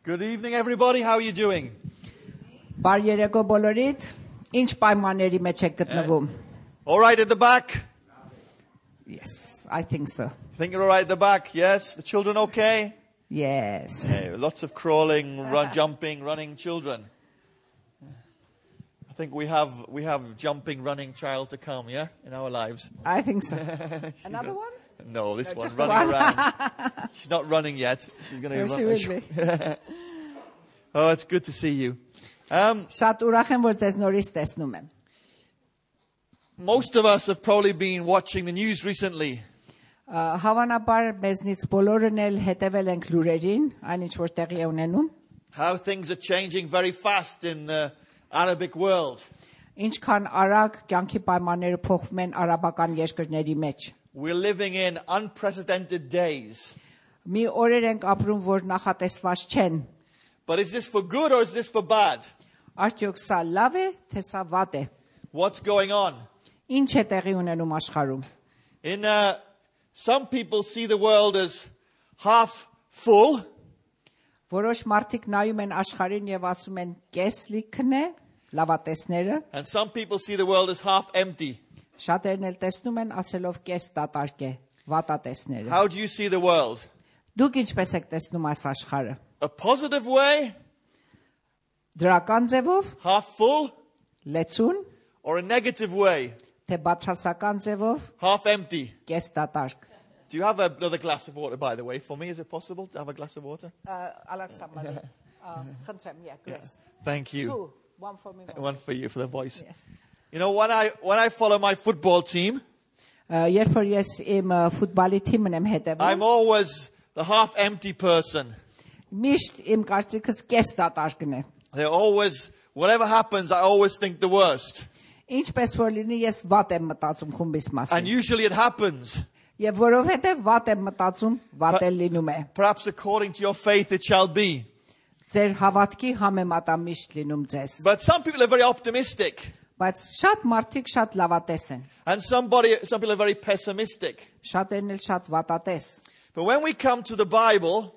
Good evening, everybody. How are you doing? Բարի երեկո բոլորիդ, ինչ պայմանների մեջ եք գտնվում? All right at the back? Yes, I think so. Think you're all right at the back? Yes? The children okay? Yes. Yeah, lots of crawling, jumping, running children. I think we have jumping, running child to come, yeah, in our lives. I think so. Another one? No, this one just the running one. around. She's not running yet. She's going to She will be. Oh, it's good to see you. Շատ ուրախ եմ, որ ձեզ նորից տեսնում եմ. Most of us have probably been watching the news recently. Հավանաբար մեզնից բոլորն էլ հետևել ենք լուրերին, այնինչ որ տեղի է ունենում. How things are changing very fast in the Arabic world. Ինչքան արագ կյանքի պայմանները փոխվում են արաբական երկրների մեջ. We're living in unprecedented days. Մի օրեր ենք ապրում, որ նախատեսված չեն. But is this for good or is this for bad? Արդյոք սա լավ է, թե սա վատ է? What's going on? Ինչ է տեղի ունենում աշխարհում? In some people see the world as half full. Որոշ մարդիկ նայում են աշխարհին եւ ասում են կես լիքն է, լավատեսները, And some people see the world as half empty. շատերն էլ տեսնում են ասելով կես դատարկ է, վատատեսները։ How do you see the world? Դուք ինչպես եք տեսնում այս աշխարհը? A positive way? Դրական ձևով, Half full? լեցուն, Or a negative way? թե բացասական ձևով, Half empty? կես դատարկ։ Do you have another glass of water, by the way, for me? Is it possible to have a glass of water? Ալեքսանդր, խնդրեմ, Grace. Thank you. Two, one for me. One for you, for the voice. Yes. You know, when I follow my football team, Երբ որ ես իմ ֆուտբոլի թիմն եմ հետևում, I'm always the half empty person. միշտ իմ կարծիքս կես դատարկն է։ They're always, whatever happens, I always think the worst. Ինչպես որ լինի, ես վատ եմ մտածում խումբիս And մասին։ usually it happens. Եվ որովհետև վատ եմ մտածում, վատ էլ լինում է։ Perhaps according to your faith it shall be. Ձեր հավատքի համեմատա միշտ լինում ձեզ։ But some people are very optimistic. Բայց շատ մարդիկ շատ լավատես են։ And some people are very pessimistic. Շատերն էլ շատ վատատես։ But when we come to the Bible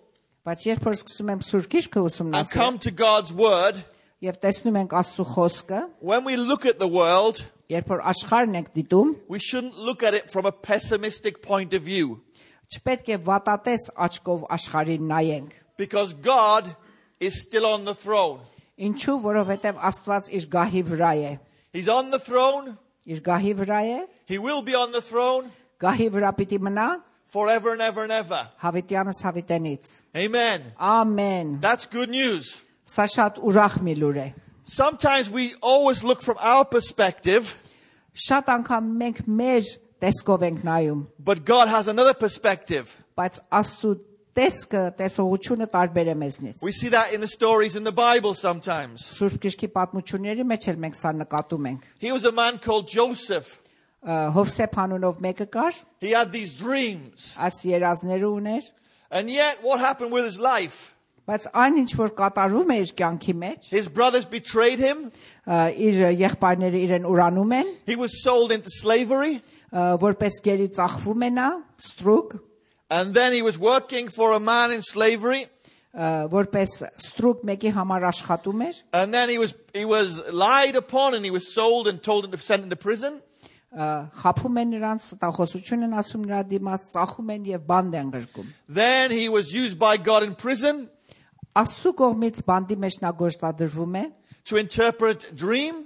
Բայց երբ որ սկսում եմ Սուրբ Գիրքը and come ուսումնասիրել to God's Word, եւ տեսնում ենք Աստծո խոսքը, when we look at the world, երբ որ աշխարհն ենք դիտում, we shouldn't look at it from a pessimistic point of view. չպետք է վատատես աչքով աշխարհին նայենք։ Because God is still on the throne. Ինչու? Որովհետև Աստված իր գահի վրա է։ He's on the throne. Իր գահի վրա է, He will be on the throne գահի վրա պիտի մնա forever and ever and ever. հավիտյանս հավիտենից։ Amen. Ամեն։ That's good news. Սա շատ ուրախ մի լուր է։ Sometimes we always look from our perspective, Շատ անգամ մենք մեր տեսքով ենք նայում, but God has another perspective. բայց Աստծո տեսքը, տեսողությունը տարբեր է մեզնից։ We see that in the stories in the Bible sometimes. Սուրբ Գրքի պատմությունների մեջ էլ մենք սա նկատում ենք։ He was a man called Joseph. Հովսեփ անունով մեկը կար, He had these dreams. այս երազները ուներ, And yet what happened with his life? բայց այն ինչ որ կատարում է իր կյանքի մեջ, His brothers betrayed him. իր եղբայրները իրեն ուրանում են, He was sold into slavery. որպես գերի ծախվում է նա, ստրուկ, And then he was working for a man in slavery. որպես ստրուկ մեկի համար աշխատում էր, And then he was lied upon and he was sold and told to be sent into prison. խափում են նրանց, տախոսություն են ասում նրա դիմաց, ծախում են եւ բանդ են գրկում։ Then he was used by God in prison Աստծո կողմից բանդի մեջ նա գործադրվում է, to interpret a dream,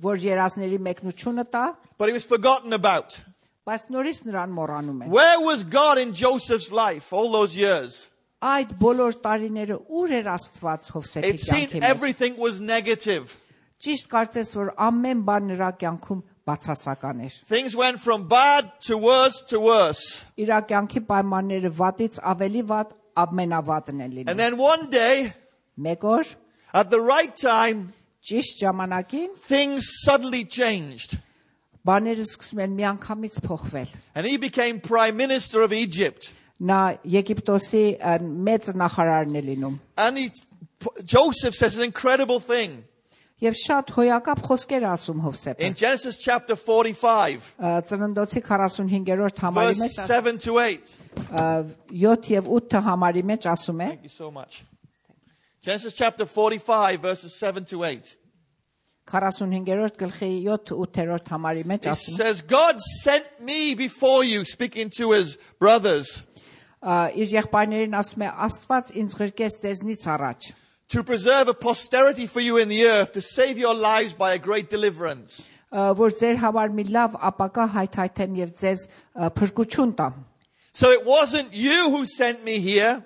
որ երազների մեկնությունը տա, but he was forgotten about. բայց նորից նրան մոռանում են։ Where was God in Joseph's life all those years? Այդ բոլոր տարիները ուր էր Աստված Հովսեփի It seemed կյանքի մեջ։ everything was negative. Ճիշտ կարծես որ ամեն բան նրա կյանքում բացասական էր։ Things went from bad to worse to worse. Իր կյանքի պայմանները վատից ավելի վատ, ամենավատն են And լինում։ then one day, Մեկ օր at the right time, ճիշտ ժամանակին things suddenly changed. բաները սկսում են միանգամից փոխվել։ And he became prime minister of Egypt. Նա Եգիպտոսի մեծ նախարարն է լինում։ And Joseph says an incredible thing. Եվ շատ հոյակապ խոսքեր ասում Հովսեփը։ In Genesis chapter 45, Ծննդոցի 45-րդ համարի verse մեջ 7 to 8. 7 եւ 8 համարի մեջ ասում է. Thank you so much. Genesis chapter 45, verses 7 to 8. 45-րդ գլխի 7-8-րդ համարի մեջ It ասում says, God sent me before you, speaking to his brothers, իր եղբայրներին ասում է Աստված ինձ ղրկեց ձեզնից առաջ to preserve a posterity for you in the earth, to save your lives by a great deliverance. որ ձեր համար մի լավ ապակա հայթայթեմ եւ ձեզ փրկություն տամ So it wasn't you who sent me here,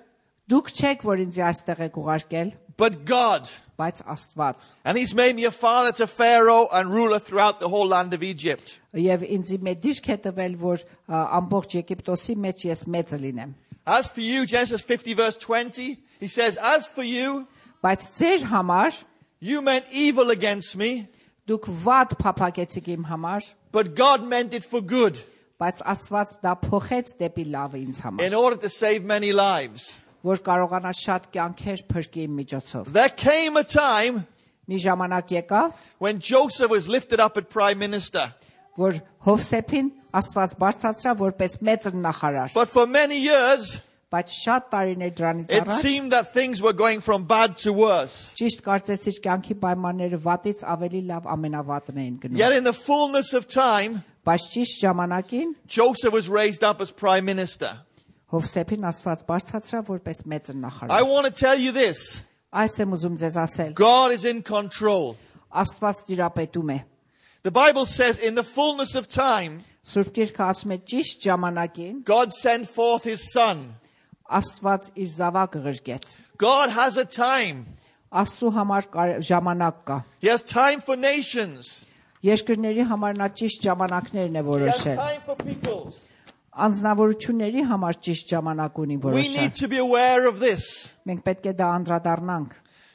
դուք չեք որ ինձ այստեղ եք ուղարկել but God. բայց Աստված And he's made me a father to Pharaoh and ruler throughout the whole land of Egypt. եւ ինձ մի դիրք է տվել որ ամբողջ Եգիպտոսի մեջ ես մեծը լինեմ As for you, Genesis 50 verse 20, he says, as for you, բայց ձեր համար you meant evil against me, դուք վատ փափագեցիք իմ համար but God meant it for good, բայց Աստված դա փոխեց դեպի լավը ինձ համար in order to save many lives. որ կարողանա շատ կյանքեր փրկի իմ միջոցով There came a time մի ժամանակ եկավ when Joseph was lifted up as prime minister. որ Հովսեփին Աստված բարձրացրա որպես մեծ նախարար But for many years, բայց շատ տարիներ դրանից it առաջ seemed that things were going from bad to worse. ճիշտ կարծես իր կյանքի պայմանները վատից ավելի լավ ամենավատն էին գնում Yet in the fullness of time, բայց ճիշտ ժամանակին Joseph was raised up as prime minister. Հովսեփին Աստված բարձրացրա որպես մեծ I նախարար want to tell you this. այս եմ ուզում ձեզ ասել God is in control. Աստված տիրապետում է The Bible says in the fullness of time, Սուրբ Գիրքը ասում է ճիշտ ժամանակին God sent forth his son. Աստված իր զավակը ղրկեց God has a time. Աստծո համար ժամանակ կա He has time for nations. երկրների համար նա ճիշտ ժամանակներն է He has որոշել time for peoples. անձնավորությունների համար ճիշտ ժամանակ ունի We որոշել need to be aware of this. մենք պետք է դա անդրադառնանք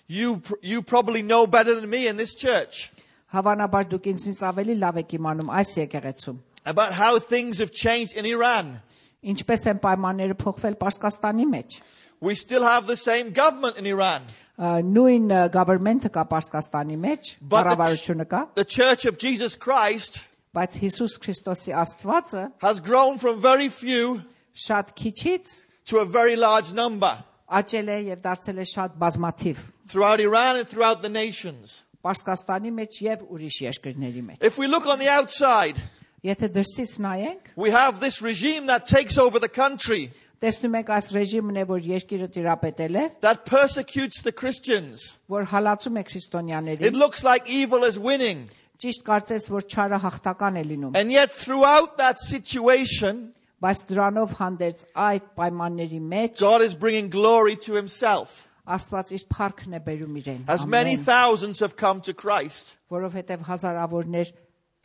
You probably know better than me in this church հավանաբար դուք ինձնից ավելի լավ եք իմանում այս եկեղեցում about how things have changed in Iran. ինչպես են պայմանները փոխվել Պարսկաստանի մեջ We still have the same government in Iran. նույն government-ը կա Պարսկաստանի մեջ But կառավարությունը կա the Church of Jesus Christ բայց Հիսուս Քրիստոսի Աստվածը has grown from very few շատ քիչից to a very large number աճել է եւ դարձել է շատ բազմաթիվ throughout Iran and throughout the nations. Պարսկաստանի մեջ եւ ուրիշ երկրների մեջ If we look on the outside, եթե դրսից նայենք we have this regime that takes over the country, տեսնում ենք այս ռեժիմն է որ երկիրը տիրապետել է that persecutes the Christians. որ հալածում է It քրիստոնյաներին looks like evil is winning. ճիշտ կարծես որ չարը հաղթական է լինում And yet throughout that situation, բայց դրանով հանդերձ այդ պայմանների մեջ God is bringing glory to himself. Աստված իր փառքն է բերում իրեն As many thousands have come to Christ. որովհետև հազարավորներ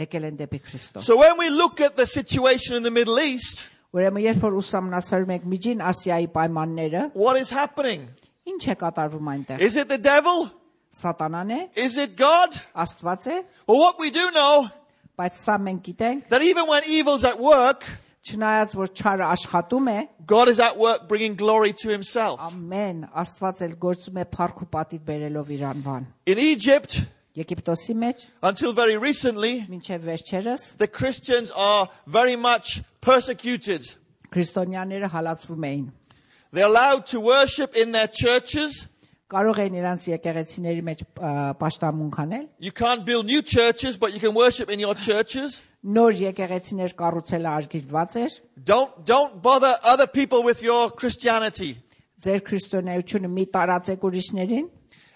եկել են դեպի Քրիստոս So when we look at the situation in the Middle East, ուրեմն երբ որ ուսումնասիրում ենք Միջին Ասիայի պայմանները what is happening? ինչ է կատարվում այնտեղ Is it the devil? սատանան է Is it God? Աստված է Well, what we do know, բայց սա մենք գիտենք that even when evil's at work, չնայած որ չարը աշխատում է God is at work bringing glory to himself. ամեն Աստված էլ գործում է փառք ու պատիվ բերելով իր անվան In Egypt, Եգիպտոսի մեջ until very recently, մինչև վերջերս the Christians are very much persecuted. քրիստոնյաները հալածվում էին They're allowed to worship in their churches. կարող էին իրանց եկեղեցիների մեջ պաշտամունք անել You can't build new churches, but you can worship in your churches. նոր եկեղեցիներ կառուցելը արգելված էր Don't bother other people with your Christianity. ձեր քրիստոնեությունը մի տարածեք ուրիշներին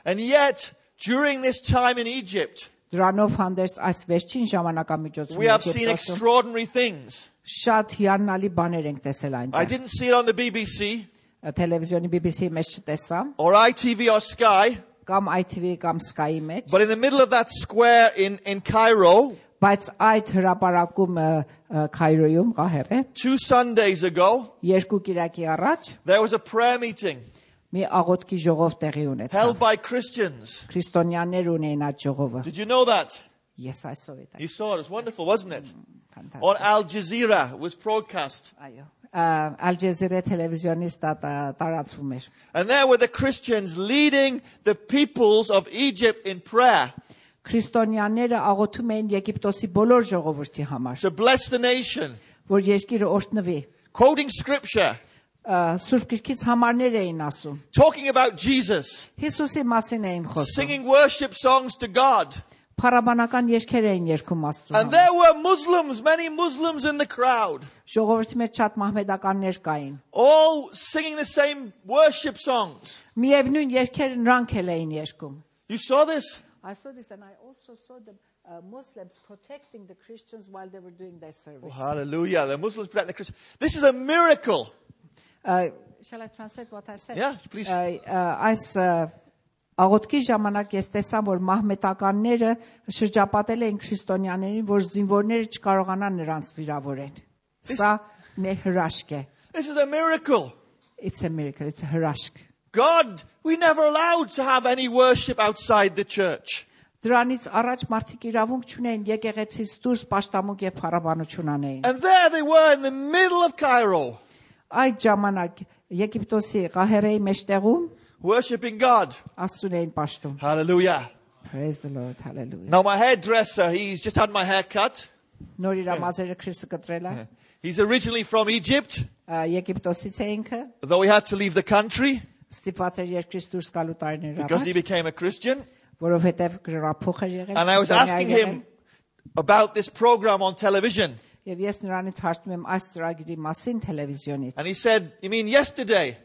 And yet, during this time in Egypt, դրանով հանդերձ այս վերջին ժամանակամիջոցում we have seen extraordinary things. շատ հիանալի բաներ ենք տեսել I այնտեղ didn't see it on the BBC տելևիզիոնի BBC-ի մեջ չտեսա or ITV or Sky, կամ ITV կամ Sky-ի մեջ but in the middle of that square in Cairo, բայց այդ հրապարակում Քայրոյում Ղահերը 2 Sundays ago, երկու կիրակի առաջ there was a prayer meeting մի աղոթքի ժողով տեղի ունեցավ held by Christians. քրիստոնյաներ ունեին այդ ժողովը Did you know that? ես այսօր էի You saw it. It was wonderful, wasn't it? ֆանտաստիկ On Al Jazeera, it was broadcast. այո Al Jazeera տելևիզիոնից տարածվում էր And there were the Christians leading the peoples of Egypt in prayer քրիստոնյաները աղոթում էին Եգիպտոսի բոլոր ժողովրդի համար to bless the nation, որ երկիրը օրհնվի quoting scripture. Սուրբ Գրքից համարներ էին ասում։ talking about Jesus, Հիսուսի մասին էին խոսում։ singing worship songs to God. Փառաբանական երգեր էին երգում Աստծո And համար։ there were Muslims, many Muslims in the crowd, Ժողովրդի մեջ շատ մահմեդականներ կային։ all singing the same worship songs. Միևնույն երգերը նրանք էլ էին երգում։ You saw this? I saw this and I also saw the Muslims protecting the Christians while they were doing their service. Hallelujah. The Muslims protect the Christians. This is a miracle. Shall I translate what I said? Yeah, please. Այս աղոթքի ժամանակ ես տեսա, որ մահմետականները շրջապատել էին քրիստոնյաներին, որ զինվորները չկարողանան նրանց վիրավորեն։ Սա մի հրաշք է։ This is a miracle. It's a miracle, it's a հրաշք։ God, we never allowed to have any worship outside the church. Դրանից առաջ մարդիկ իրավունք չունեին եկեղեցից դուրս պաշտամունք եւ փառաբանություն անեին։ And there they were in the middle of Cairo, Այդ ժամանակ Եգիպտոսի Ղահերեի մեջտեղում worshiping God. Աստծուն էին պաշտում։ Hallelujah. Praise the Lord, hallelujah։ Now my hairdresser, he's just had my hair cut. Նոր իր մազերը Քրիստը կտրել է։ He's originally from Egypt, Եգիպտոսից է ինքը, though he had to leave the country ստիպված էր երկրից դուրս գալու տարիներ because he առաջ, became a Christian. որովհետև գրափոխ էր եղել։ And I was asking him about this program on television. Եվ ես նրանից հարցնում եմ այս ծրագիրի մասին տելևիզիոնից։ And he said, "You mean yesterday?"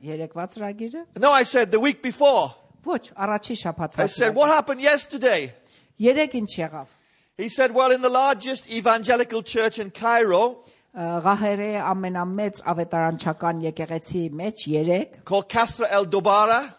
Երեկվա ծրագիրը։ No, I said, "The week before." Ոչ, առաջի շաբաթվա I said, "What happened yesterday?" Երեք ինչ եղավ։ He said, "Well, in the largest evangelical church in Cairo, Ղահերեի ամենամեծ ավետարանչական եկեղեցի մեջ երեք, called Kasra El Dobara,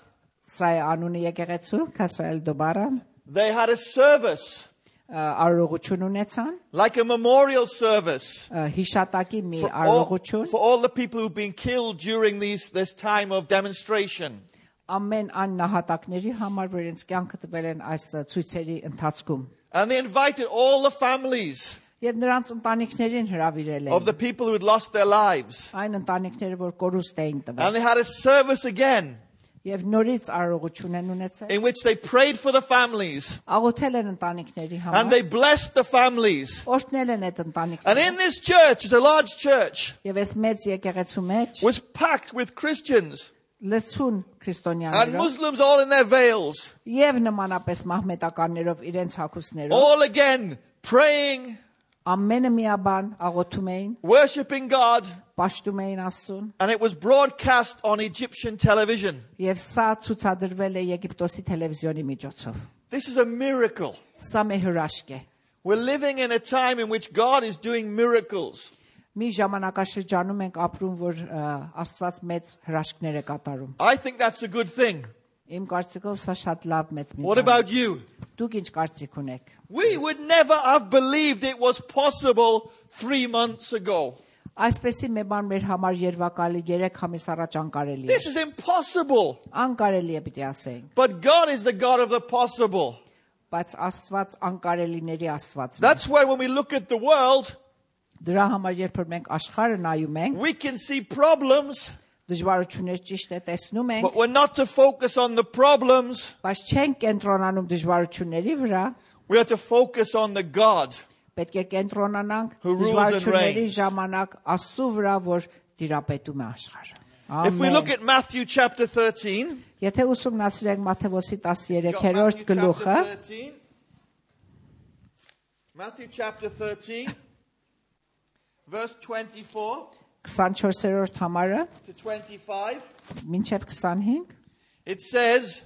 սա է անունը եկեղեցու, Քասրել Դոբարը, they had a service, արարողություն ունեցան, like a memorial service, հիշատակի մի for all, արարողություն, for all the people who've been killed during this time of demonstration. ամեն այն նահատակների համար, որ իրենց կյանքը տվել են այս ցույցերի ընթացքում։ And they invited all the families Եվ նրանց ընտանիքներին հրավիրել of the էին, people who had lost their lives. այն ընտանիքները, որ կորուստ էին And տվել։ they had a service again Եվ նորից արարողություն են ունեցել, in which they prayed for the families աղոթել են ընտանիքների and համար, they blessed the families. օրհնել են այդ And ընտանիքները։ in this church, it's a large church, Եվ այս մեծ եկեղեցու մեջ was packed with Christians լցուն and քրիստոնյաներով Muslims all in their veils, եւ նմանապես մահմետականներով իրենց հագուստներով all again praying, ամենը միաբան աղոթում էին, worshiping God, պաշտում էին Աստծուն, and it was broadcast on Egyptian television. եւ սա ցուցադրվել է Եգիպտոսի տելևիզիոնի միջոցով։ This is a miracle. Սա մի հրաշք է։ We're living in a time in which God is doing miracles. Մի ժամանակաշրջանում ենք ապրում, որ Աստված մեծ հրաշքներ է կատարում։ I think that's a good thing. Իմ կարծիքով սա շատ լավ մեծ մի What բան է։ about you? Դուք ինչ կարծիք ունեք։ We would never have believed it was possible 3 months ago. Այսպեսի մի բան մեր համար երևակալի 3 ամիս առաջ անկարելի է։ This is impossible. Անկարելի է պիտի ասենք, But God is the God of the possible. բայց Աստված անկարելիների Աստվածն է։ That's why when we look at the world, Դրա համար երբ որ մենք աշխարհը նայում ենք, we can see problems, դժվարություններ ճիշտ է տեսնում ենք, but we're not to focus on the problems. բայց չենք կենտրոնանում դժվարությունների վրա, We are to focus on the God. պետք է կենտրոնանանք Who rules and դժվարությունների reigns. ժամանակ Աստծո վրա, որ տիրապետում է աշխարհը։ If we look Ամեն։ at Matthew chapter 13, Եթե ուսումնասիրենք Մատթեոս got 13-րդ Matthew գլուխը, chapter 13. Matthew chapter 13, verse 24 24-րդ համարը, to 25. մինչև 25, It says,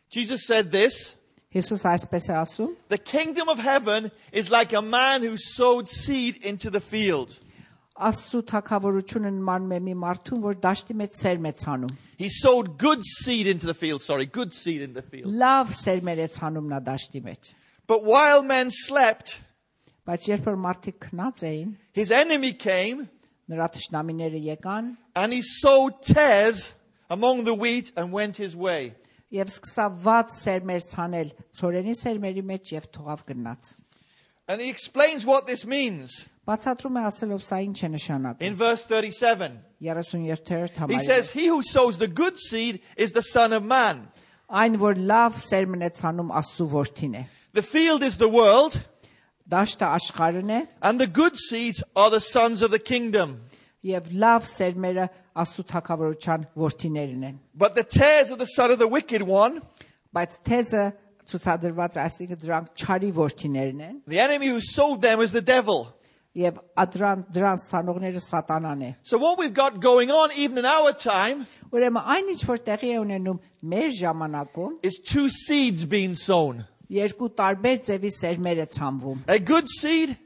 Jesus said this, Հիսուս այսպես է ասում. the kingdom of heaven is like a man who sowed seed into the field. Աստծո թագավորությունը նմանում է մի մարդուն, որ դաշտի մեջ սերմ է ցանում։ He sowed good seed into the field, good seed in the field. Լավ սերմեր է ցանում նա դաշտի մեջ։ But while men slept, Բայց երբ որ մարդիկ քնած էին, his enemy came նրա թշնամիները եկան and he sowed tares among the wheat and went his way. եւ սկսավ վատ սերմեր ցանել ցորենի սերմերի մեջ եւ թողավ գնաց։ And he explains what this means Բացատրում է ասելով սա ինչ է նշանակում։ in verse 37. 37-րդ He համարը։ says, he who sows the good seed is the Son of Man. Այն որ լավ սերմն է ցանում Աստծո որդին է։ The field is the world Դաշտը աշխարհն է and the good seeds are the sons of the kingdom. եւ լավ սերմերը Աստծո թագավորության որդիներն են։ But the tares of the son of the wicked one, Բայց թեզը ցուցադրված այսինքն դրանք չարի որդիներն են the enemy who sowed them is the devil. եւ դրանց սանողները սատանան է։ So what we've got going on even in our time Ուրեմն այն ինչ որ տեղի է ունենում մեր ժամանակում is two seeds being sown. երկու տարբեր ձևի սերմեր է ցանվում։ A good seed,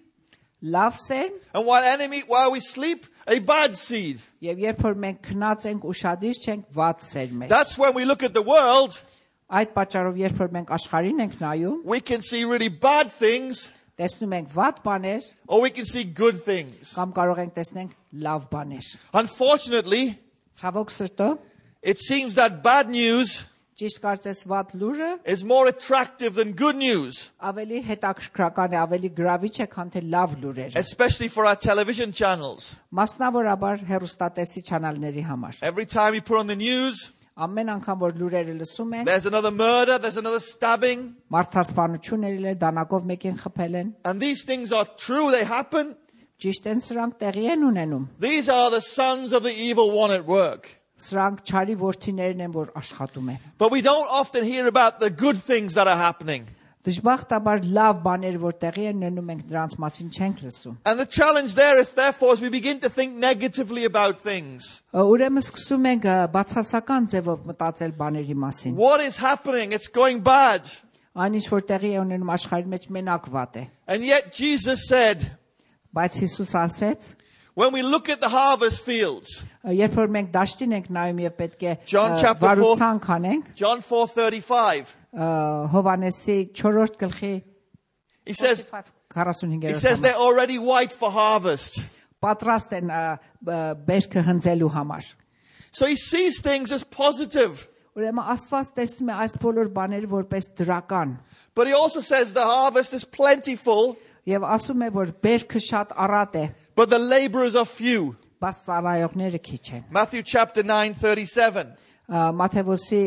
Լավ սերմ and while we sleep, a bad seed. եւ երբ որ մենք քնած ենք ուշադիր չենք վատ սերմեր։ That's when we look at the world, Այդ պատճառով երբ որ մենք աշխարհին ենք նայում, we can see really bad things, տեսնում ենք վատ բաներ or we can see good things. կամ կարող ենք տեսնենք լավ բաներ։ Unfortunately, Ցավոք սրտո, it seems that bad news ճիշտ կարծես վատ լուրը is more attractive than good news, ավելի հետաքրքրական է, ավելի գրավիչ է, քան թե լավ լուրերը։ especially for our television channels. Մասնավորաբար հեռուստատեսի չանալների համար։ Every time we put on the news, Ամեն անգամ որ լուրերը լսում ենք, there's another murder, there's another stabbing, մարդասպանություն ելել է, դանակով մեկին խփել են։ and these things are true, they happen. Ճիշտ են սրանք տեղի են ունենում։ These are the sons of the evil one at work. Սրանք չարի որդիներն են, որ աշխատում են։ But we don't often hear about the good things that are happening. Դժբախտաբար լավ բաներ որ տեղի են ունենում ենք դրանց մասին չենք լսում։ And the challenge there is therefore as we begin to think negatively about things. Ուրեմն սկսում ենք բացասական ձևով մտածել բաների մասին։ What is happening? It's going bad. Այն ինչ որ տեղի է ունենում աշխարհի մեջ մենակ վատ է։ And yet Jesus said, Բայց Հիսուս ասեց, when we look at the harvest fields, երբ որ մենք դաշտին ենք նայում եւ պետք է John chapter 4. վարուցանք անենք, John 4:35, Հովանեսի 4-րդ գլխի he says 45-րդ they're already white for harvest. պատրաստ են բերքը հնձելու համար։ So he sees things as positive. Ուրեմն Աստված տեսնում է այս բոլոր բաները որպես դրական But he also says the harvest is plentiful, եւ ասում է որ բերքը շատ առատ է, but the laborers are few. բայց ծառայողները քիչ են։ Matthew chapter 9:37. Մատթեոսի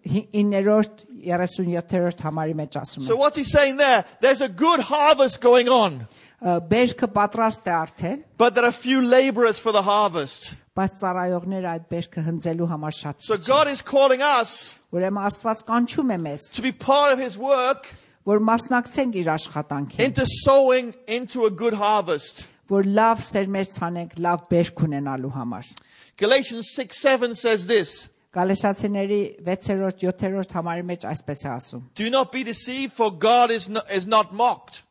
9-րդ 37-րդ համարի մեջ ասում So է։ what's he saying there? There's a good harvest going on, Բերքը պատրաստ է արդեն, but there are few laborers for the harvest. բայց ծառայողները այդ բերքը հնձելու համար շատ So քիչ God են։ is calling us Ուրեմն Աստված կանչում է մեզ, to be part of his work որ մասնակցենք իր աշխատանքին, into sowing into a good harvest. որ լավ սերմեր ցանենք, լավ բերք ունենալու համար։ Galatians 6:7 says this, Գալատացիների 6-րդ 7-րդ համարի մեջ այսպես է ասում. do not be deceived, for God is not mocked.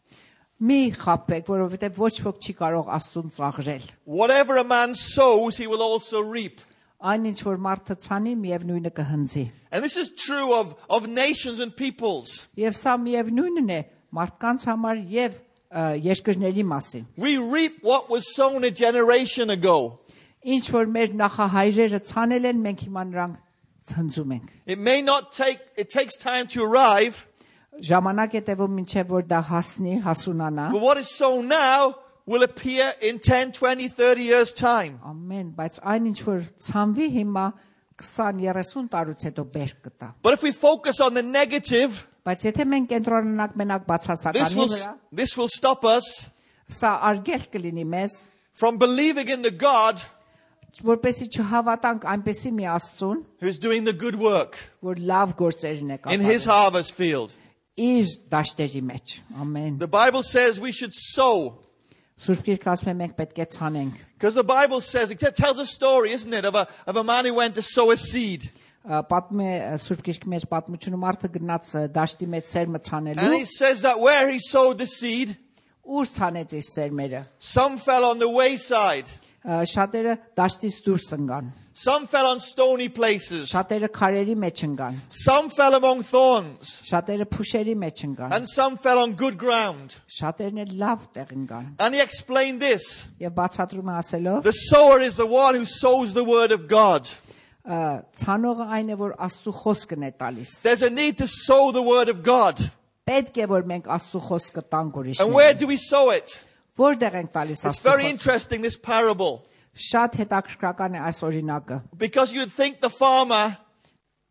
Մի խաբեք, որովհետև ոչ ոք չի կարող Աստծուն ծաղրել։ Whatever a man sows, he will also reap. Այն ինչ որ մարդը ցանի, միևնույնը կհնձի։ And this is true of nations and peoples. Եվ սա միևնույնն է մարդկանց համար եւ երկրների մասին։ We reap what was sown a generation ago. Ինչ որ մեր նախահայրերը ցանել են, մենք հիմա նրանք հնձում ենք։ It takes time to arrive, Ժամանակ է տևում մինչև որ դա հասնի, հասունանա։ but what is sown now will appear in 10, 20, 30 years' time. Ամեն, բայց այն ինչ որ ցանվի հիմա 20-30 տարուց հետո բերք կտա։ But if we focus on the negative, Բայց եթե մենք կենտրոնանանք մենակ բացասականի վրա, this will stop us սա արգելք կլինի մեզ, from believing in the God որպեսզի չհավատանք այնպեսի մի Աստծուն, who's doing the good work որ լավ գործերն է in his կատարում harvest field. իր դաշտերի մեջ։ Ամեն։ The Bible says we should sow. Սուրբ Գիրքը ասում է մենք պետք է ցանենք։ Because the Bible says, it tells a story, isn't it, of a man who went to sow a seed. Պատմում է Սուրբ Գիրքի մեջ պատմությունը մարդը գնաց դաշտի մեջ սերմը And ցանելու, it says that where he sowed the seed, ուր ցանեց իր սերմերը։ some fell on the wayside, Շատերը դաշտից դուրս ընկան, some fell on stony places, շատերը քարերի մեջ ընկան, some fell among thorns, շատերը փուշերի մեջ ընկան, and some fell on good ground. շատերն էլ լավ տեղ ընկան։ And he explained this. Եվ բացատրում է ասելով, The sower is the one who sows the word of God. ցանողը այն է, որ Աստծո խոսքն է տալիս։ There's a need to sow the word of God. Պետք է որ մենք Աստծո խոսքը տանք And where ուրիշներին։ do we sow it? Որտեղ ենք տալիս It's Աստծո very խոսքը։ interesting, this parable. Շատ հետաքրքրական է այս օրինակը, Because you'd think the farmer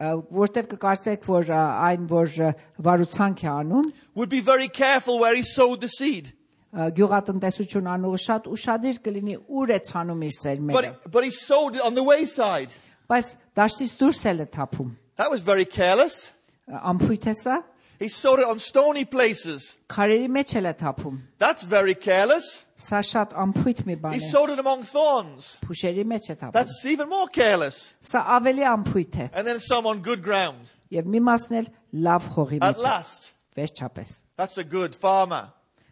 որտեղ կկարծեք, որ այն որ վարուցանք է անում, would be very careful where he sowed the seed. գյուղատնտեսություն անողը շատ ուշադիր կլինի ուր է ցանում իր սերմերը But he sowed it on the wayside. բայց դաշտից դուրս էլ է թափում That was very careless. ամփույթ է սա He sowed it on stony places. քարերի մեջ էլ է թափում That's very careless. սա շատ ամփույթ մի բան He է sowed it among thorns. փուշերի մեջ է թափում That's even more careless. սա ավելի ամփույթ է And then some on good ground. եւ մի մասն էլ լավ խողի At մեջ է last. վերջապես That's a good farmer.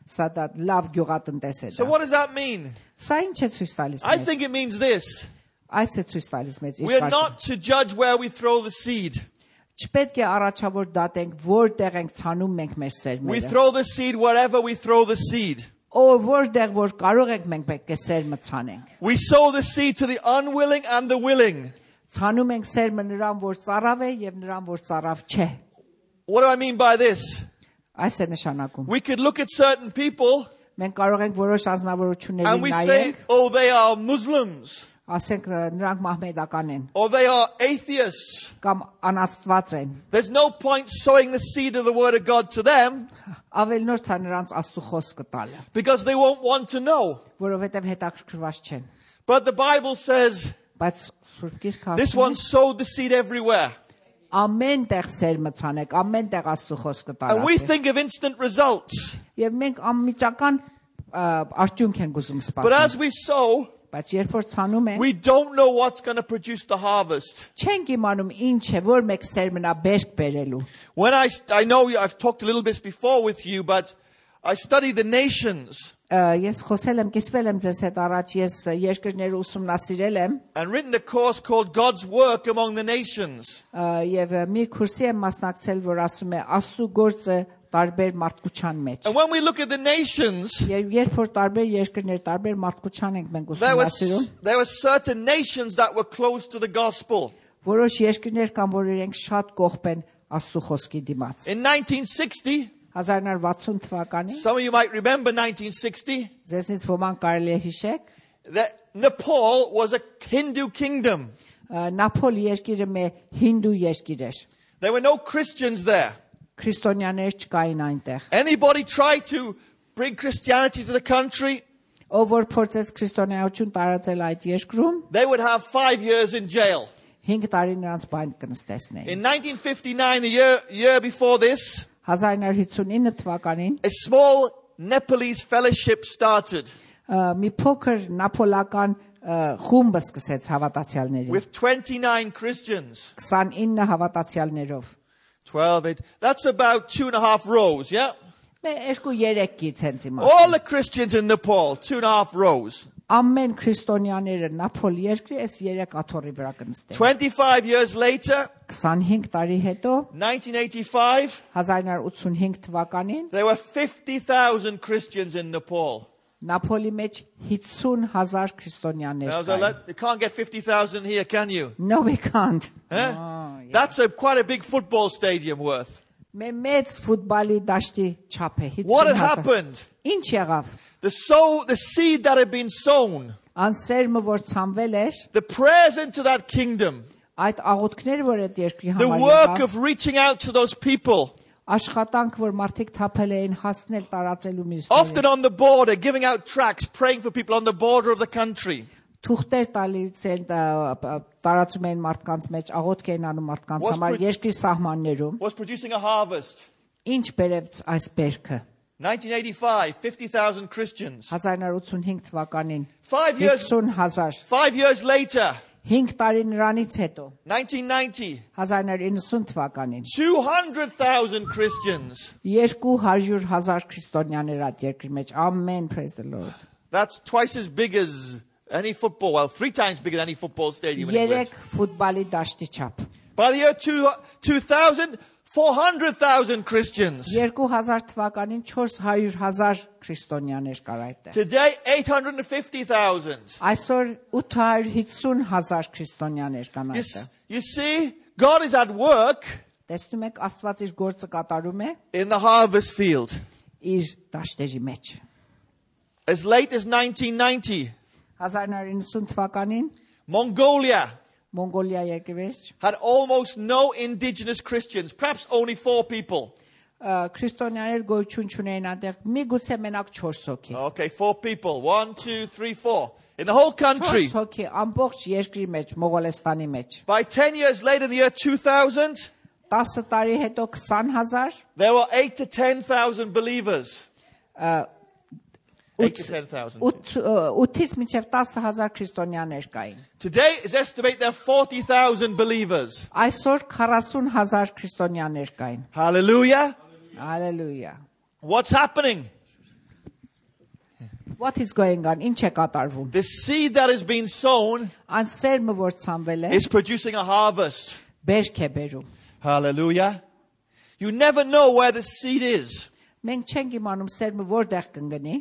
սա դա լավ գյուղատնտես է So դա what does that mean? սա ինչ է ցույց տալիս I մեզ think it means this. այս է ցույց տալիս մեզ We are not to judge where we throw the seed. չպետք է առաջավոր դատենք որտեղ ենք ցանում մենք մեր We սերմերը throw the seed wherever we throw the seed. որտեղ որ կարող ենք մենք պետք է սերմը ցանենք We sow the seed to the unwilling and the willing. ցանում ենք սերմը նրան որ ծարավ է եւ նրան որ ծարավ չէ What do I mean by this? այս է նշանակում We could look at certain people մենք կարող ենք որոշ անձնավորությունների and we say, նայենք oh, they are Muslims ասենք նրանք մահմեդական են or they are atheists. կամ անաստված են There's no point sowing the seed of the Word of God to them ավելնորդ է նրանց աստծո խոսքը տալը because they won't want to know. որովհետեւ հետաքրքրված չեն But the Bible says բայց Սուրբ Գիրքը this ասում one sowed the seed everywhere. ամեն տեղ սերմը ցանեք ամեն տեղ աստծո խոսքը And we տարածեք think of instant results. եւ մենք անմիջական արդյունք ենք ուզում But սպասել as we sow, բայց երբ որ ցանում ենք we don't know what's going to produce the harvest. չենք իմանում ինչ է որ մեկ սերմնա բերք բերելու When I know I've talked a little bit before with you, but I study the nations ես խոսել եմ կիսվել եմ ձեզ հետ առաջ ես երկրները ուսումնասիրել եմ and written a course called God's Work Among the Nations. եւ մի քուրսի եմ մասնակցել որ ասում է աստծո գործը տարբեր մարդկության մեջ And when we look at the nations, եւ երբ որ տարբեր երկրներ տարբեր մարդկության ենք մենք ուսումնասիրում there were certain nations that were close to the gospel. որոշ երկրներ կան որ իրենք շատ կողբ են աստծո խոսքի դիմաց In 1960, 1960 թվականին some of you might remember 1960, ձեզնից ոմանք կարելի է հիշեք that Nepal was a Hindu kingdom. Նապոլ երկիրը մի հինդու երկիր էր There were no Christians there. քրիստոնյաներ չկային այնտեղ Anybody tried to bring Christianity to the country, ով որ փորձեց քրիստոնեություն տարածել այդ երկրում they would have 5 years in jail. 5 տարի նրանց բանտ կնստեցնեին In 1959, the year before this, 1959 թվականին a small Nepalese fellowship started մի փոքր նապոլական խումբ սկսեց հավատացյալների with 29 Christians. 29 հավատացյալներով 12, that's about 2.5 rows, yeah? Մեր 2-3 կից հենց իմա All the Christians in Nepal, 2.5 rows. ամեն քրիստոնյաները նապոլ երկրի այս 3 աթոռի վրա կնստեն 25 years later, 25 տարի հետո 1985, 1985 թվականին there were 50,000 Christians in Nepal. նապոլի մեջ 50,000 քրիստոնյաներ Now, կային you can't get 50,000 here, can you? No we can't Huh? yeah. That's quite a big football stadium worth. մեծ ֆուտբոլի դաշտի չափ է What had 50,000 happened? ինչ եղավ The seed that had been sown, անսերմը որ ցանվել էր the prayers into that kingdom, այդ աղոթքները որ այդ երկրի the համար work եղավ of reaching out to those people, աշխատանք որ մարդիկ թափել էին հասնել տարածելու often միսիոները on the border, giving out tracts, praying for people on the border of the country. թուղթեր տալիս են տարածում էին մարդկանց մեջ աղոթք էին անում մարդկանց Was համար pro- երկրի սահմաններում Was producing a harvest. ինչ բերեց այս բերքը 1985, 50,000 Christians. 1985 թվականին 5 years, 50,000 5 years later, 5 տարի նրանից հետո 1990, 1990 թվականին 200,000 Christians. 200,000 քրիստոնյաներ այդ երկրի մեջ ամեն praise the Lord That's twice as big as any football. Well, 3 times bigger than any football stadium in England. 3 ֆուտբոլի դաշտի չափ By the year 2000, 400,000 Christians. 2000 թվականին 400,000 քրիստոնյաներ կար այդտեղ Today, 850,000. այսօր 850,000 քրիստոնյաներ կան այդտեղ You see, God is at work տեսնում եք Աստված իր գործը կատարում է in the harvest field. իր դաշտերի մեջ As late as 1990, 1990 թվականին Mongolia Մոնգոլիա երկրի had almost no indigenous Christians, perhaps only 4 people. քրիստոնյաներ գոյություն չունեին այնտեղ միգուցե մենակ 4 հոգի Okay, 4 people. 1, 2, 3, 4. In the whole country. 4 հոգի ամբողջ երկրի մեջ Մողոլեստանի մեջ By 10 years later, in the year 2000, 10 տարի հետո 20000 there were 8 to 10,000 believers. 8 to 10,000. 8-ից մինչև 10000 քրիստոնյաներ կային Today, it's estimated there are 40,000 believers. այսօր 40000 քրիստոնյաներ կային Hallelujah. Hallelujah. What's happening? What is going on? Ինչ է կատարվում The seed that has been sown Այն սերմը որ ցանվել է is producing a harvest. բերք է բերում Hallelujah. You never know where the seed is. մենք չենք իմանում սերմը որտեղ կընկնի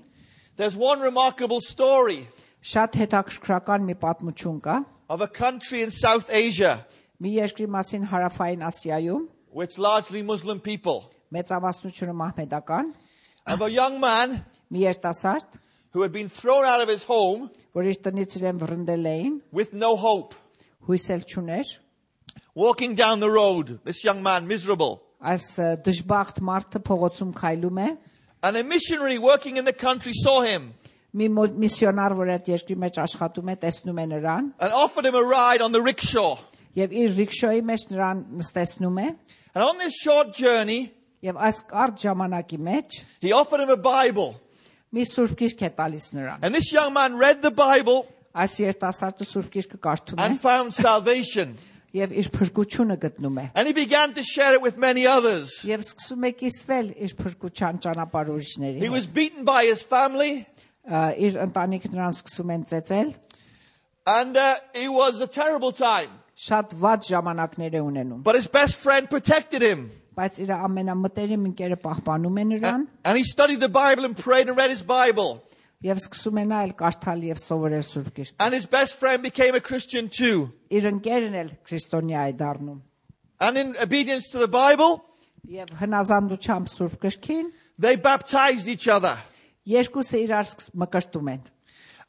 There's one remarkable story շատ հետաքրքրական մի պատմություն կա of a country in South Asia, մի երկրի մասին հարավային Ասիայում which largely Muslim people, մեծամասնությունը մահմեդական of a young man մի երիտասարդ who had been thrown out of his home որ իր տնից իրեն վռնդել էին with no hope. հույսել չուներ Walking down the road, this young man, miserable. այս դժբախտ մարդը փողոցում քայլում է And a missionary working in the country saw him մի միսիոնար որ այդ երկրի մեջ աշխատում է տեսնում է նրան and offered him a ride on the rickshaw. եւ իր ռիքշոյի մեջ նրան նստեցնում է And on this short journey, եւ այս կարճ ժամանակի մեջ he offered him a Bible. մի սուրբ գիրք է տալիս նրան And this young man read the Bible այս երիտասարդը սուրբ գիրքը կարդում է and found salvation. եւ իր փրկությունը գտնում է And he began to share it with many others. եւ սկսում է կիսվել իր փրկության ճանապարհ ուրիշների He հետ was beaten by his family, իր ընտանիքը նրան սկսում են ծեծել and it was a terrible time. շատ վատ ժամանակներ է ունենում But his best friend protected him. բայց իր ամենամտերիմ ընկերը պահպանում է նրան And he studied the Bible and prayed and read his Bible. եւ սկսում է նայել կարդալ եւ սովորել սուրբ գիրք And his best friend became a Christian too. իր ընկերն էլ քրիստոնյա է դառնում And in obedience to the Bible, եւ հնազանդությամբ սուրբ գրքին they baptized each other. երկուսը իրար մկրտում են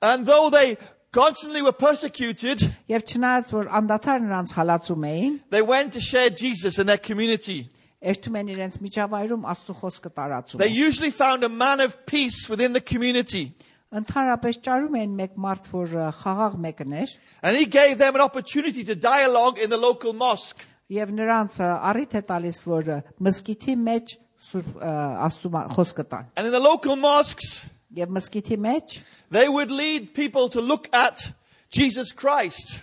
And though they constantly were persecuted, եւ չնայած որ անդադար նրանց հալածում էին they went to share Jesus in their community. երթում են իրենց միջավայրում Աստծո խոսքը տարածում They usually found a man of peace within the community. ընդհանրապես ճարում են մեկ մարդ որ խաղաղ մեկն էր And he gave them an opportunity to dialogue in the local mosque. եւ նրանց առիթ է տալիս որ մզկիթի մեջ սուրբ Աստծո խոսքը տան And in the local mosques, եւ մզկիթի մեջ they would lead people to look at Jesus Christ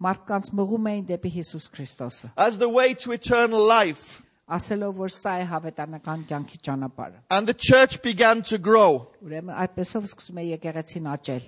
մարդկանց մղում էին դեպի Հիսուս Քրիստոսը as the way to eternal life. ասելով որ սա է հավետանական կյանքի ճանապարհը And the church began to grow. ուրեմն այդպեսով սկսում է եկեղեցին աճել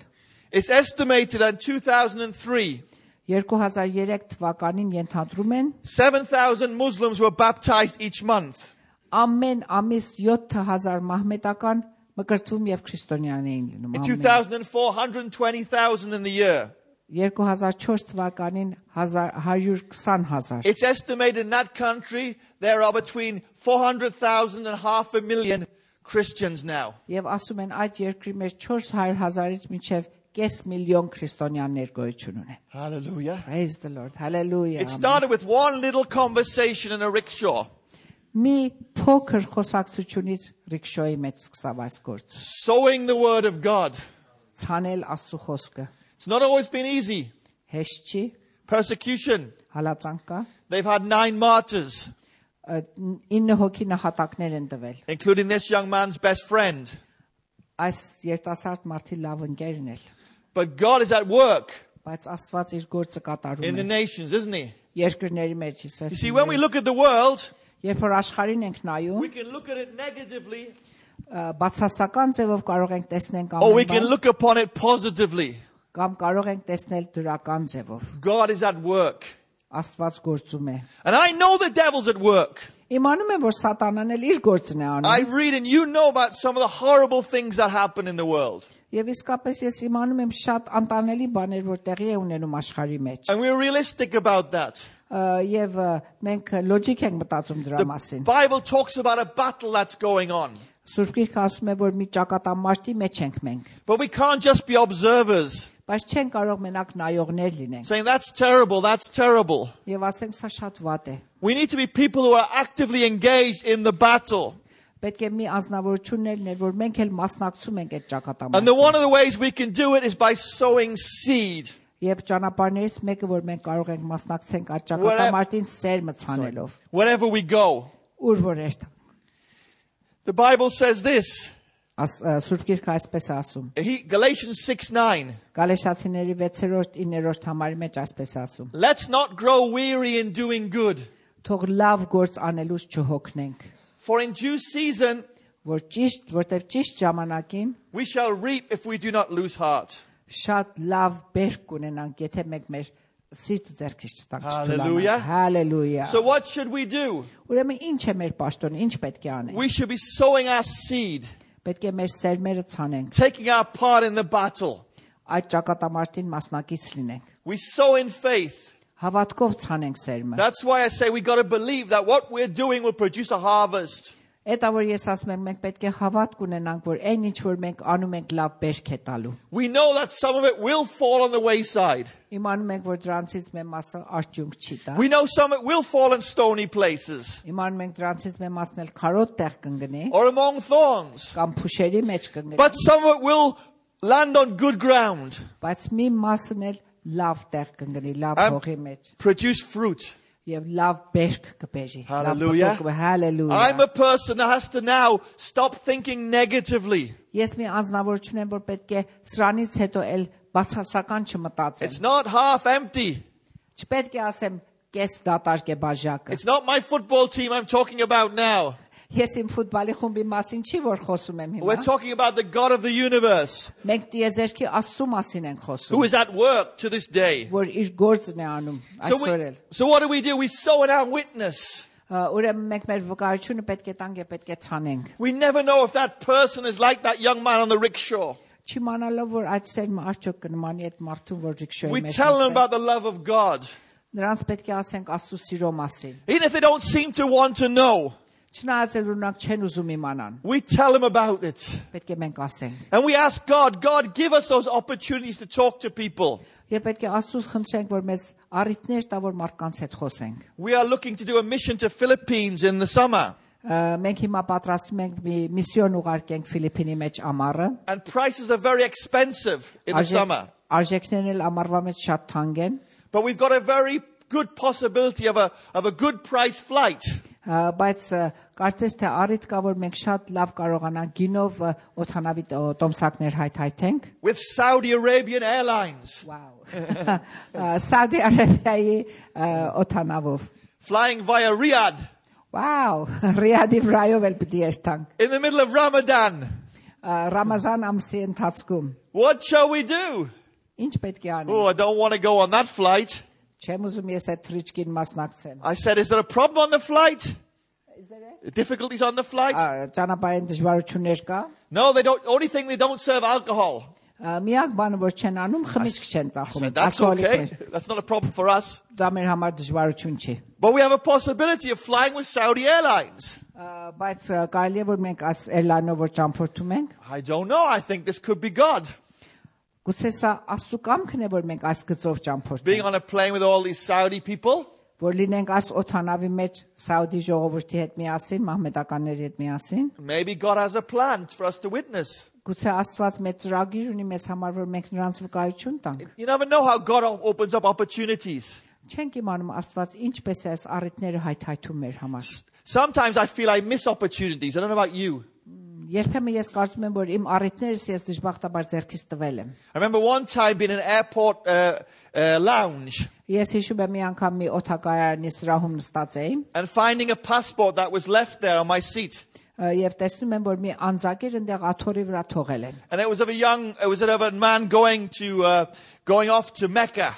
It's estimated that in 2003, 2003 թվականին ենթադրում են 7,000 Muslims were baptized each month. ամեն ամիս 7000 մահմեդական մկրտվում եւ քրիստոնյաներ էին լինում In ամեն 2004, 120,000 in the year. 2004 թվականին 120000 It's estimated in that country there are between 400,000 and 500,000 Christians now. եւ ասում են այդ երկրի մեջ 400,000-ից մինչեւ կես միլիոն քրիստոնյաներ գոյություն ունեն Hallelujah. Praise the Lord hallelujah It started with one little conversation in a rickshaw. մի փոքր խոսակցությունից ռիքշոյի մեջ սկսավ այս գործը Sowing the word of God. ցանել Աստծո խոսքը It's not always been easy. հեշտ չի Persecution. հալածանք կա They've had 9 martyrs, 9 հոգի նահատակներ են տվել including this young man's best friend. այս երիտասարդ մարդի լավ ընկերն էլ But God is at work բայց Աստված իր գործը in կատարում the է nations, isn't he? երկրների մեջ You see, when we look at the world, երբ որ աշխարհին ենք նայում we can look at it negatively բացասական ձևով կարող ենք տեսնել or we կամ can look upon it positively. կամ կարող ենք տեսնել դրական ձևով God is at work. Աստված գործում է And I know the devil's at work. իմանում եմ որ սատանան էլ իր գործն է I անում read and you know about some of the horrible things that happen in the world. եւ իսկապես ես իմանում եմ շատ անտանելի բաներ որ տեղի է ունենում աշխարհի մեջ And we're realistic about that. եւ մենք լոջիկ ենք մտածում դրա The մասին Bible talks about a battle that's going on. Սուրբ Գիրքը ասում է, որ մի ճակատամարտի մեջ ենք մենք, But we can't just be observers, բայց չեն կարող մենակ նայողներ լինենք saying that's terrible. եւ ասենք սա շատ վատ է։ We need to be people who are actively engaged in the battle. Պետք է մի անձնավորություն լինել, որ մենք էլ մասնակցում ենք այդ And ճակատամարտին։ one of the ways we can do it is by sowing seed. Եվ ճանապարհներից մեկը, որ մենք կարող ենք մասնակցենք այդ ճակատամարտին սեր մցանելով, Wherever we go. ուր որ երթ։ The Bible says this. Սուրբ Գիրքը այսպես է ասում։ Galatians 6:9. Գալեշացիների 6-րդ 9-րդ համարի մեջ այսպես է ասում. Let's not grow weary in doing good. Թող լավ գործ անելուց չհոգնենք, For in due season որտեղ ճիշտ ժամանակին we shall reap if we do not lose heart. շատ լավ բերք կունենանք, եթե մենք մեր սիրտը ձեռքից չտանք Hallelujah. չթուլանանք։ Հալելույա։ So what should we do? Ուրեմն ինչ է մեր պաշտոնը, ինչ պետք է անենք։ We should be sowing our seed, Պետք է մեր սերմերը ցանենք, taking our part in the battle. այդ ճակատամարտին մասնակից լինենք, We sow in faith. հավատքով ցանենք սերմը։ That's why I say we got to believe that what we're doing will produce a harvest. Էտա որ ես ասում եմ, մենք պետք է հավատք ունենանք, որ այն ինչ որ մենք անում ենք լավ բերք է տալու։ We know that some of it will fall on the wayside. Իմանում ենք, որ դրանցից մեր մասը արդյունք չի տա։ We know some of it will fall in stony places Իմանում ենք դրանցից մեր մասն էլ քարոտ տեղ կընկնի, or among thorns. կամ փուշերի մեջ կընկնի, But some of it will land on good ground բայց մի մասն էլ լավ տեղ կընկնի, լավ Am- հողի մեջ produce fruit. եւ լավ բերք կբերի։ Hallelujah. Hallelujah։ I'm a person that has to now stop thinking negatively. Ես մի անձնավորություն եմ, որ պետք է սրանից հետո էլ բացասական չմտածեմ։ It's not half empty. Չպետք է ասեմ կես դատարկ է բաժակը։ It's not my football team I'm talking about now. Ես իմ ֆուտբոլի խումբի մասին չի որ խոսում եմ We're հիմա։ talking about the God of the universe Մենք տիեզերքի Աստծո մասին ենք who խոսում, is at work to this day. որ իր գործն է անում այսօր էլ։ So what do? We sow in our witness. Ուրեմն մենք մեր վկայությունը պետք է տանք եւ պետք է ցանենք։ We never know if that person is like that young man on the rickshaw. Չիմանալով որ այդ սերմը արդյոք կնմանի այդ մարդուն, որ ռիքշոյի We մեջ tell them նստել։ about the love of God. Նրանց պետք է ասենք Աստծո սիրո մասին։ Even if they don't seem to want to know, Չնայած էլ ունակ չեն ուզում իմանան, we tell them about it. պետք է մենք ասենք։ And we ask God, give us those opportunities to talk to people. Եվ պետք է Աստծուց խնդրենք, որ մեզ առիթներ տա, որ մարդկանց հետ խոսենք։ We are looking to do a mission to Philippines in the summer. Մենք հիմա պատրաստում ենք մի միսիոն ուղարկենք Ֆիլիպինի մեջ ամառը։ And prices are very expensive in the summer. Արժեքներն էլ ամառվա մեջ շատ թանկ են, But we've got a very good possibility of a good price flight. բայց կարծես թե առիթ կա, որ մենք շատ լավ կարողանանք գինով օդանավի տոմսակներ հայթայթենք։ With Saudi Arabian Airlines. Wow. Saudi Arabia-ի օդանավով։ Flying via Riyadh Wow, Ռիադի վրայով էլ պիտի երթանք։ in the middle of Ramadan. Ռամազան ամսի ընթացքում What shall we do? ինչ պետք է անենք։ Oh, I don't want to go on that flight. Չեմ ուզում ես այդ թրիչքին մասնակցեմ։ I said, is there a problem on the flight? Difficulties on the flight? Ճանապարհային դժվարություններ կա։ No, they don't. Only thing they don't serve alcohol. Միակ բանը որ չեն անում, խմիչք չեն I տախում։ said, that's okay. That's not a problem for us. Դա մեր համար դժվարություն չի։ But we have a possibility of flying with Saudi Airlines. Բայց կարելի է որ մենք այս airline-ով որ ճամփորդում ենք, I don't know. I think this could be God. գուցե սա Աստծո կամքն է որ մենք այս գծով Being ճամփորդենք, on a plane with all these Saudi people. որ լինենք այս օթանավի մեջ Սաուդի ժողովրդի հետ միասին, մահմեդականների հետ միասին։ Maybe God has a plan for us to witness. Գուցե Աստված մեծ ծրագիր ունի մեզ համար, որ մենք նրանց վկայություն տանք։ You never know how God opens up opportunities. Չենք իմանում Աստված ինչպես է այս առիթները հայթայթում մեր համար։ Sometimes I feel I miss opportunities. I don't know about you. Երբեմն ես կարծում եմ, որ իմ առիթներս ես դժբախտաբար ձեռքից տվել եմ։ I remember one time being in an airport lounge Ես հիշում եմ մի անգամ մի օթակայարանի սրահում նստած էի and finding a passport that was left there on my seat. եւ տեսնում եմ, որ մի անձակեր այնտեղ աթոռի vրա թողել են։ And it was of a man going off to Mecca.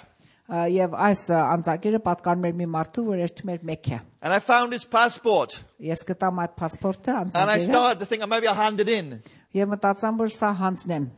Եվ այս անձակերը պատկանում էր մի մարդու, որ երթում էր Մեքքա։ And I found his passport. Ես գտամ այդ паспортը, And I անձակերը, started to think maybe I'll hand it in. եւ մտածամ, որ սա հանձնեմ։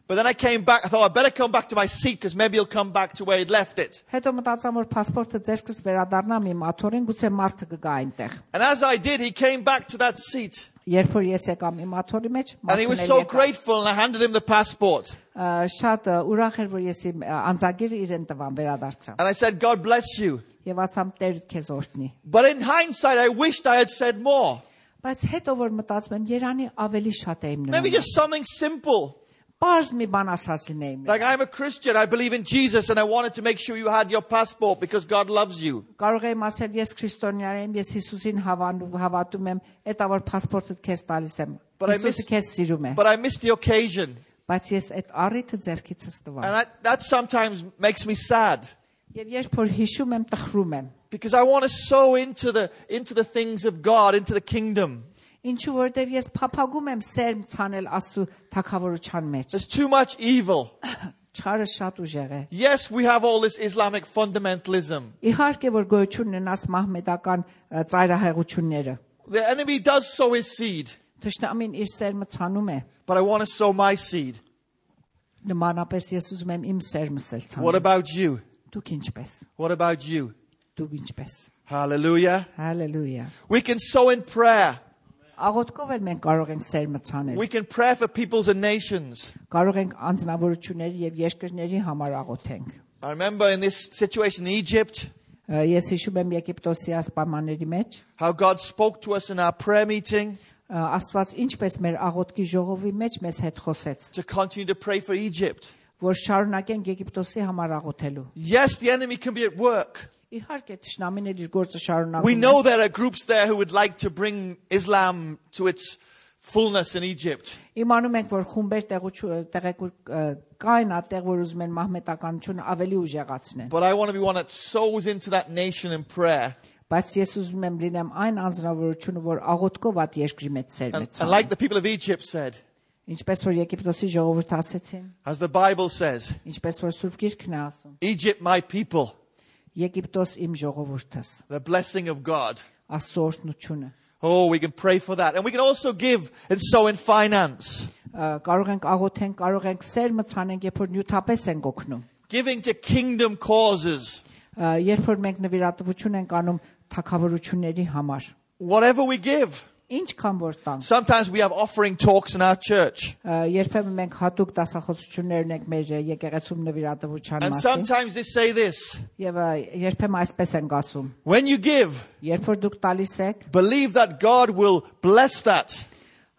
But then I came back. I thought I'd better come back to my seat because maybe he'll come back to where he'd left it. Հետո մտածամ, որ паспортը ձերքս վերադառնամ իմ աթոռին, գուցե մարդը կգա այնտեղ։ And as I did, he came back to that seat. Երբ որ ես եկամ իմ աթոռի մեջ, And he was so grateful, and I handed him the passport. շատ ուրախ էր, որ ես իմ անձագիրը իրեն տվան վերադարձա։ And I said, God bless you. Եվ ասամ Տեր քեզ օրհնի։ But in hindsight, I wished I had said more. Բայց հետո որ մտածում եմ, Երանի ավելի շատ եմ Maybe նման։ just something simple. Պարզ մի բան ասած լինեի։ Like, I'm a Christian, I believe in Jesus, and I wanted to make sure you had your passport because God loves you. Կարող եմ ասել ես քրիստոնյա եմ, ես Հիսուսին հավատում եմ, այդ որ փասպորտը քեզ տալիս եմ։ Հիսուսը քեզ սիրում է։ But I missed the occasion. Բայց ես այդ առիթը ձեռքիցս տվա։ And that sometimes makes me sad. Եվ երբ որ հիշում եմ, տխրում եմ։ Because I want to sow into the things of God, into the kingdom. Ինչու որտեվ ես փափագում եմ սերմ ցանել Աստծո թագավորության մեջ։ There's too much evil. Չարը շատ ուժեղ է։ Yes, we have all this Islamic fundamentalism. Իհարկե որ գոյություն ունենաս մահմեդական ծայրահեղությունները։ The enemy does sow his seed, Թշնամին իր սերմը ցանում է։ but I want to sow my seed. Նմանապես ես ուզում եմ իմ սերմս էլ What ցանել։ about you? Դուք ինչպես։ What about you? Դուք ինչպես։ Hallelujah. Հալելույա։ We can sow in prayer. Աղոթքով էլ մենք կարող ենք սերմը ցանել։ We can pray for peoples and nations. Կարող ենք անձնավորությունների եւ երկրների համար աղոթենք։ I remember in this situation in Egypt, Ես հիշում եմ Եգիպտոսի ասպամանների մեջ, how God spoke to us in our prayer meeting Աստված ինչպես մեր աղոթքի ժողովի մեջ մեզ հետ խոսեց, to continue to pray for Egypt. որ շարունակենք Եգիպտոսի համար աղոթելու։ Yes, the enemy can be at work. Իհարկե թշնամին էլ իր գործը շարունակում We է։ know there are groups there who would like to bring Islam to its fullness in Egypt. Իմանում ենք, որ խումբեր տեղեկուր կային այդտեղ, որ ուզում են մահմետականությունը ավելի ուժեղացնեն։ But I want to be one that sows into that nation in prayer. Բայց ես ուզում եմ լինեմ այն անձնավորությունը, որ աղոթքով այդ երկրի մեջ սերմ է And like the people of Egypt said, Ինչպես որ Եգիպտոսի ժողովուրդը ասեցին, as the Bible says, ինչպես որ Սուրբ Գիրքն է ասում, Egypt, my people, Եգիպտոս իմ ժողովուրդս, the blessing of God. Աստծո օրհնությունը։ Oh, we can pray for that. And we can also give and sow in finance. Կարող ենք աղոթենք, կարող ենք սերմը ցանենք, երբ որ նյութապես ենք օգնում։ Giving to kingdom causes. Երբ որ մենք նվիրատվություն ենք անում թագավորությունների համար։ Whatever we give. Ինչքան որ տանք։ Sometimes we have offering talks in our church. Երբեմն մենք հատուկ դասախոսություններ ունենք մեր եկեղեցում նվիրատվության And մասին։ sometimes they say this. Եվ երբեմն այսպես ենք ասում. When you give, Երբ որ դուք տալիս եք, believe that God will bless that.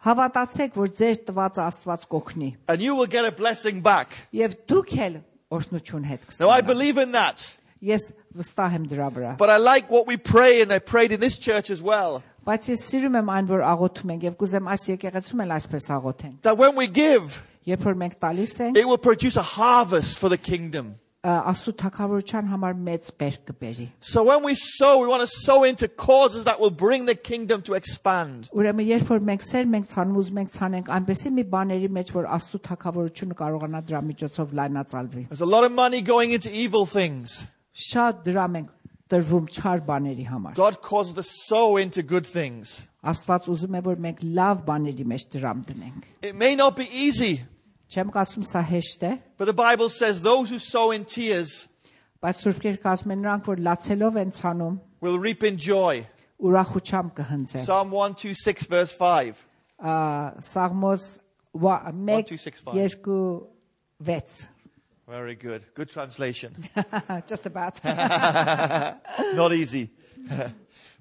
հավատացեք, որ ձեր տվածը Աստված կօգնի։ And you will get a blessing back. Եվ դուք էլ օրհնություն հետ Now I կստանաք։ believe in that. Ես վստահ եմ դրա վրա։ But I like what we pray, and I prayed in this church as well. Բայց ես սիրում եմ այն, որ աղոթում ենք եւ կուզեմ այս եկեղեցում էլ այսպես աղոթենք։ That when we give, Երբ որ մենք տալիս ենք, it will produce a harvest for the kingdom. Աստծո թագավորության համար մեծ բերք կբերի։ So when we sow, we want to sow into causes that will bring the kingdom to expand. Ուրեմն երբ որ մենք սերմ ենք ցանում, ուզում ենք ցանենք այնպեսի մի բաների մեջ, որ Աստծո թագավորությունը կարողանա դրա միջոցով լայնացալվի։ There's a lot of money going into evil things. Շատ դրամ ենք տրվում չար բաների համար։ God causes us to sow into good things. Աստված ուզում է, որ մենք լավ բաների մեջ դրամ դնենք։ It may not be easy, Չեմ ասում սա հեշտ է, but the Bible says those who sow in tears բայց Սուրբ Գիրքը ասում է նրանք, որ լացելով են ցանում, will reap in joy. ուրախությամբ կհնձեն։ Psalm 126 verse 5. Սաղմոս 1 1-2-6-5. 2 6 Very good. Good translation. Just about Not easy.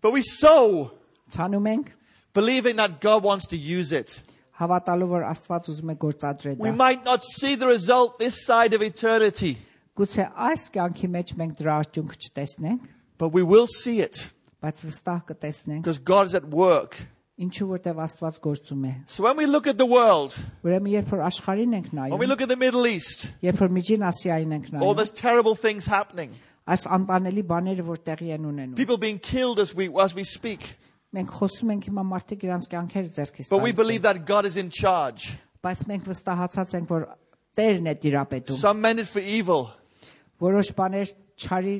But we sow, ցանում ենք, believing that God wants to use it. հավատալով որ Աստված ուզում է գործադրել We դա։ might not see the result this side of eternity, Գուցե այս կյանքի մեջ մենք դրա արդյունքը չտեսնենք, but we will see it բայց վստահ կտեսնենք, because God is at work. ինչու որտեվ Աստված գործում է։ So when we look at the world, Ուրեմն երբ որ աշխարհին ենք when we նայում, look at the Middle East, երբ որ Միջին Ասիային ենք all նայում, those terrible things happening, այս անտանելի բաները որ տեղի են ունենում, people being killed as we speak, մենք խոսում ենք հիմա մարդիկ իրանց կյանքերը ձեռքից but we տալիս believe են, that God is in charge. բայց մենք վստահացած ենք որ Տերն է տիրապետում։ Some meant it for evil, Որոշ բաներ չարի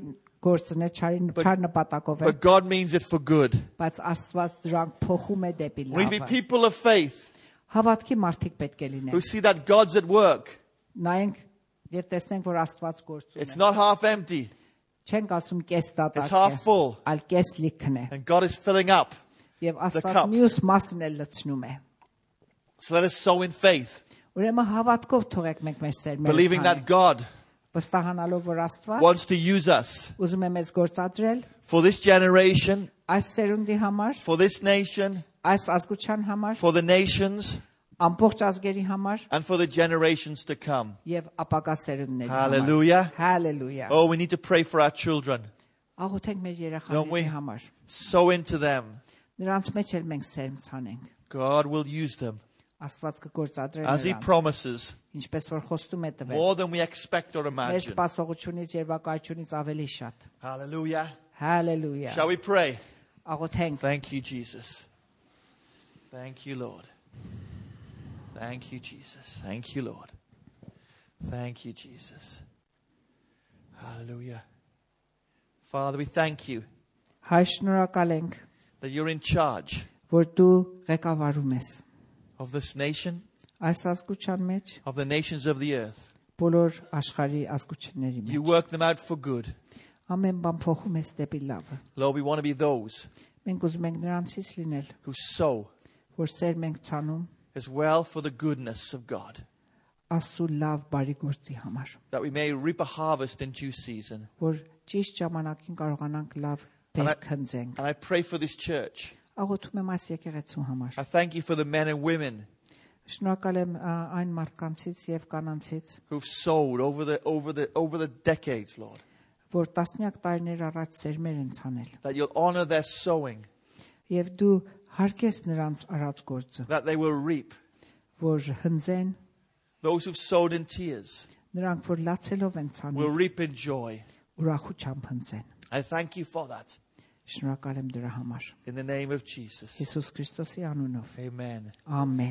գործն է, չար նպատակով է, but God means it for good. բայց Աստված դրանք փոխում է դեպի We need to be լավը։ people of faith Հավատքի մարդիկ պետք է who լինեն։ see that God's at work. Նայենք եւ տեսնենք որ Աստված գործում It's է։ not half empty, Չենք ասում կես it's դատակ half է, full, այլ կես լիքն է։ and God is filling up. Եվ Աստված cup. մյուս մասն էլ լցնում է։ So let us sow in faith, Ուրեմն հավատքով թողեք մենք մեր սերմերը believing that ցանենք, God վստահանալով որ Աստված wants to use us ուզում է մեզ գործադրել for this generation, այս սերունդի համար, for this nation, այս ազգության համար, for the nations, ամբողջ ազգերի համար and for the generations to come. եւ ապագա սերունդների համար։ Hallelujah. Hallelujah։ Oh, we need to pray for our children. Աղոթենք մեր Don't we? երեխաների համար։ Sow into them. Նրանց մեջ էլ մենք սերմ ցանենք։ God will use them Աստված կգործադրի as He նրանց, promises, ինչպես որ խոստում է տվել։ more than we expect or Մեր imagine. սպասողությունից եւ վկայությունից ավելի շատ։ Hallelujah. Hallelujah։ Shall we pray? Աղոթենք։ Thank you, Jesus. Thank you, Lord. Thank you, Jesus. Thank you, Lord. Thank you, Jesus. Hallelujah. Father, we thank you Հայր շնորհակալ ենք, that you're in charge որ դու ղեկավարում ես of this nation, այս ազգության մեջ, of the nations of the earth. բոլոր աշխարհի ազգությունների You մեջ։ work them out for good. Ամեն բան փոխում ես դեպի լավը։ Lord, we want to be those Մենք ուզում ենք նրանցից լինել, who sow որ սերմ ենք ցանում as well for the goodness of God, Աստծո լավ բարի գործի համար, that we may reap a harvest in due season. որ ճիշտ ժամանակին կարողանանք լավ բերք հնձենք։ And I pray for this church. Աղոթում եմ այս եկեղեցու համար։ I thank you for the men and women Շնորհակալ եմ այն մարդկանցից եւ կանանցից, who've sowed over the decades, Lord. որ տասնյակ տարիներ առաջ սերմեր են ցանել, That you'll honor their sowing, եւ դու հարգես նրանց արած գործը, that they will reap. որ հնձեն, Those who've sowed in tears նրանք որ լացելով են will ցանում, reap in joy. ուրախությամբ հնձեն։ I thank you for that. Շնորհակալ եմ դրա համար։ In the name of Jesus. Հիսուս Քրիստոսի անունով։ Amen. Ամեն։